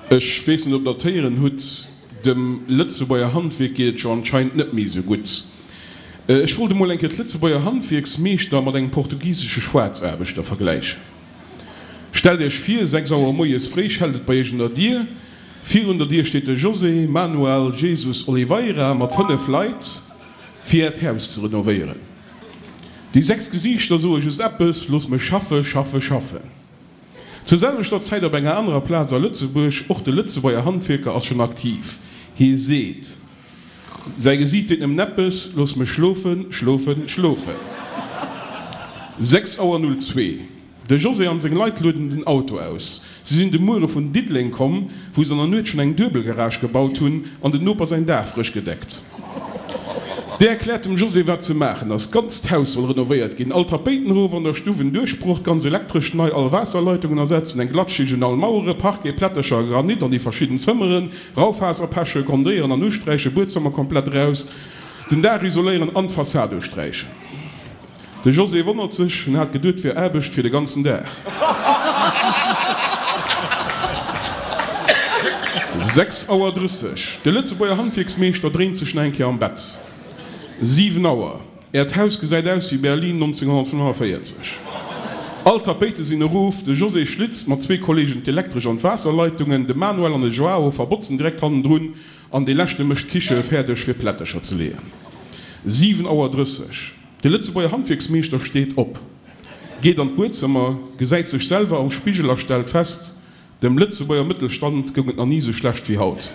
Ech weess net, ob Der et héieren hutt, dem Lëtzebuerger Handwierk geet et jo anscheinend net méi esou gutt. Ech wollt emol eng Kéier d'Lëtzebuerger Handwierksmeeschter mat engem portugisesche Schwaarzaarbechter vergläichen. Stellt Iech vir, 6 Auer moies fréi schellt et bei Iech un der Dier. Virun der Dier steet de José Manuel Jesus Oliveira mat 5 Leit, fir Äert Haus ze renovéieren. Déi 6 Gesiichter soe just eppes, Looss mech schaffe, schaffe, schaffen. Zur selwechter Zäit op enger anerer Plaz a Lëtzebuerg, och de Lëtzebuerger Handwierker ass schonn aktiv. Hie seet, säi Gesiit seet nëmmen eppes, Looss mech schlofen, schlofen, schlofen. 6 Auer 02, De José an seng Leit lueden den Auto aus. Si sinn de Muere vun Diddeleng komm, wou se an der Nuet schonn eng duebel Garage gebaut hunn an den Noper säin Daach frësch gedeckt. Dee erkläert dem José wat ze maachen ass, D'ganzt Haus soll renovéiert ginn, all Tapéiten erof, an der Stuff en Duerchbroch, d'ganz Elektrescht nei, all Waasserleitungen ersetzen, eng Glattschicht un all Mauere, Parquet, Plättercher a Granit an déi verschidden Zëmmeren, Raufaserpeche grundéieren an usträichen, Buedzëmmer komplett eraus, den Daach isoléieren an d'Fassad usträichen. De José wonnert sech, en hat geduet 't wier Aarbecht fir de ganzen Dag. 6 Auer 30, De Lëtzebuerger Handwierksmeeschter dréint sech nach eng Kéier am Bett. 7 Auer, Äert Haus gesäit aus wéi Berlin 1945. All d'Tapéite sinn erof, de José schlitzt mat zwee Kollegen d'Elektresch an d'Waasserleitungen, de Manuel an de Joao verbotzen direkt hannendrun an dee leschte mécht d'Kiche fäerdeg fir Plättercher ze leeën. 7 Auer 30, De Lëtzebuerger Handwierksmeeschter steet op, geet an d'Buedzëmmer, gesäit sech selwer am Spigel a stellt fest, Dem Lëtzebuerger Mëttelstand goung et nach ni esou schlecht wéi haut.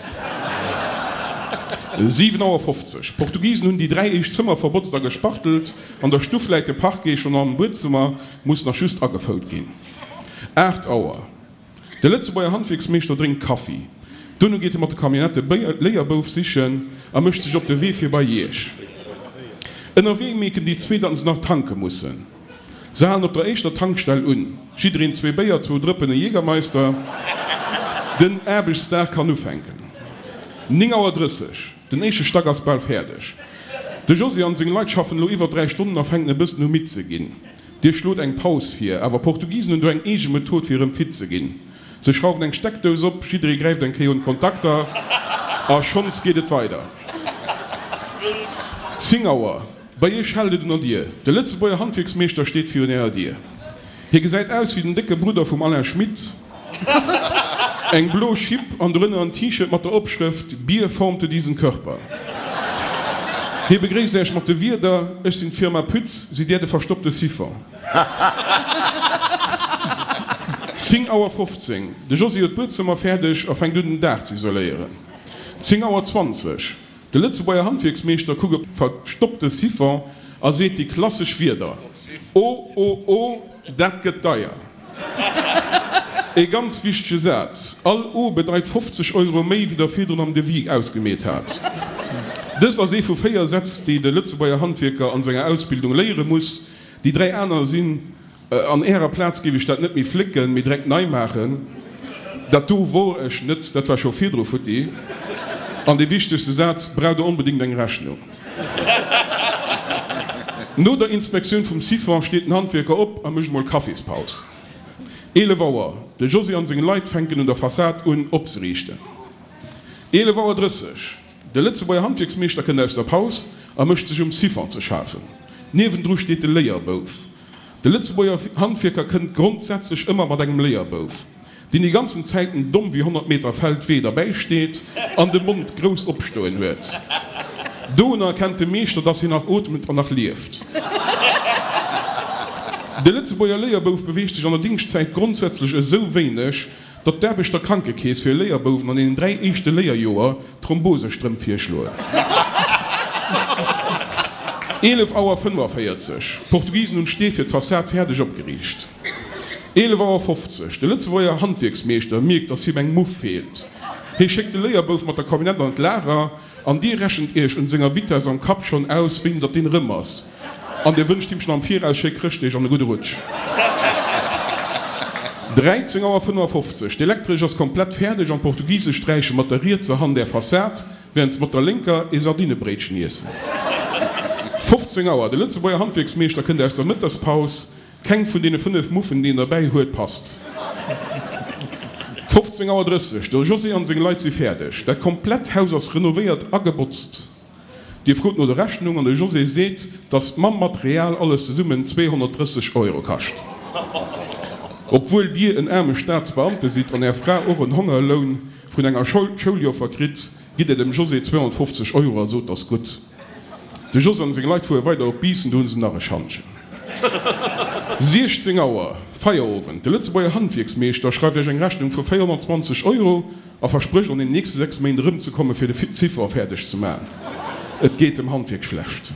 7 Auer 50, D'Portugisen hunn déi 3 éischt Zëmmer verbotzt a gespachtelt. An der Stuff läit de Parquet schonn am Buedzëmmer muss nach just agefout ginn. 8 Auer, De Lëtzebuerger Handwierksmeeschter drénkt Kaffi. Duerno geet e mat der Camionnette e Léierbouf sichen a mécht sech op de Wee fir bei Iech. Ënnerwee mierken déi zwee, datt se nach tanke mussen. Se halen op der éischter Tankstell un. Jiddereen zwee Béier, zwou Drëppen, e Jägermeister. Den Aarbechtsdag kann ufänken. 9 Auer 30, Den éischte Stack ass bal fäerdeg. De Josy an seng Leit schaffen elo iwwer 3 Stonnen a fänken e bëssen u midd ze ginn. Dir schlot eng Paus vir, awer Portugisen hunn do eng eege Method fir erëm fit ze ginn. Se schrauwen eng Steckdous op, jidderee gräift eng Kéier un d'Kontakter a schonns geet et weider. 10 Auer, Bei iech schellt et un der Dier. De Lëtzebuerger Handwierksmeeschter steet virun ärer Dier. Hie gesäit aus wéi den décke Brudder vum Alain Schmit. Eng blo Schipp an dorënner en T-Shirt mat der Opschrëft Bier formte diesen Körper. Hie begréisst Äech mat de Wierder, Ech sinn d'Firma Pütz, sidd Där de verstoppte Siphon? 10 Auer 15, De Josy huet d'Buedzëmmer fäerdeg a fänkt un den Daach ze isoléieren. 10 Auer 20, De Lëtzebuerger Handwierksmeeschter kuckt op de verstoppte Siphon a seet déi klassesch Wierder, O, o, o, dat gëtt deier! Ee ganz wichtege Saz, All O bedeit 50 Euro méi, wéi der virdrun am Devis ausgemeet hat. Dëst ass ee vu 4 Sätz, déi de Lëtzebuerger Handwierker an senger Ausbildung léiere muss. Déi 3 aner sinn, An Ärer Plaz géif ech dat net méi flécken, mee direkt nei maachen. Dat do wor ech net, dat war scho virdru futti. An dee wichtegste Saz, Braucht Der onbedéngt eng Rechnung? No der Inspektioun vum Siphon steet den Handwierker op a mécht emol Kaffispaus. 11 Auer, De Josy an seng Leit fänken un der Fassad un opzeriichten. 11 Auer 30, De Lëtzebuerger Handwierksmeeschter kënnt aus der Paus a mécht sech um Siphon ze schafen. Niewendru steet de Léierbouf. De Lëtzebuerger Handwierker kënnt grondsätzlech ëmmer mat engem Léierbouf, deen déi ganzen Zäiten domm wéi 100 Meter Feldwee derbäi steet an de Mond grouss opstoen huet. Dounner erkennt de Meeschter, dass hien nach ootmet an nach lieft. De Lëtzebuerger Léierbouf beweegt sech an der Dingschtzäit grondsätzlech esou wéineg, Datt d'Aarbechter Krankekeess fir Léierbouwen an deenen 3 éischte Léierjoer Thrombosestrëmp virschloen. 11 Auer 45, D'Portugisen hunn d'Stee fir d'Fassad fäerdeg opgeriicht. 11 Auer 50, De Lëtzebuerger Handwierksmeeschter mierkt, datt him eng Muff feelt. Hie schéckt de Léierbouf mat der Camionnette an d'Lager. An dir rechent iech un senger Vitess am Kapp schonn aus, wéini datt deen erëm ass. An dir wënscht him schonn am Viraus schéi Chrëschtdeeg an e gudde Rutsch. 13 Auer 55, D'Elektresch ass komplett fäerdeg an d'Portugise sträiche mat der rietser Hand är Fassad, wärend se mat der lénker ee Sardinebréitchen iessen. 15 Auer, De Lëtzebuerger Handwierksmeeschter kënnt aus der Mëttegspaus. Keng vun deene 5 Muffen, déi en derbäi huet, passt. 15 Auer 30, De José an seng Leit si fäerdeg. Dat komplett Haus ass renovéiert a gebotzt. Dir frot no der Rechnung an de José seet, dass mam Material alles zesummen 230 Euro kascht. Obwuel Dir en aarme Staatsbeamte sidd an Är Fra och en Hongerloun vun enger Schouljoffer kritt, gitt Dir dem José 250 Euro a sot, 't ass gutt. De José an seng Leit fuere weider op Biissen, do hunn se nach e Schantjen. 16 Auer, Feierowend, De Lëtzebuerger Handwierksmeeschter schreift Iech eng Rechnung vu 420 Euro a versprécht an den nächste 6 Méint erëmzekomme fir de Ziffer fäerdeg ze maachen. Et geet dem Handwierk schlecht.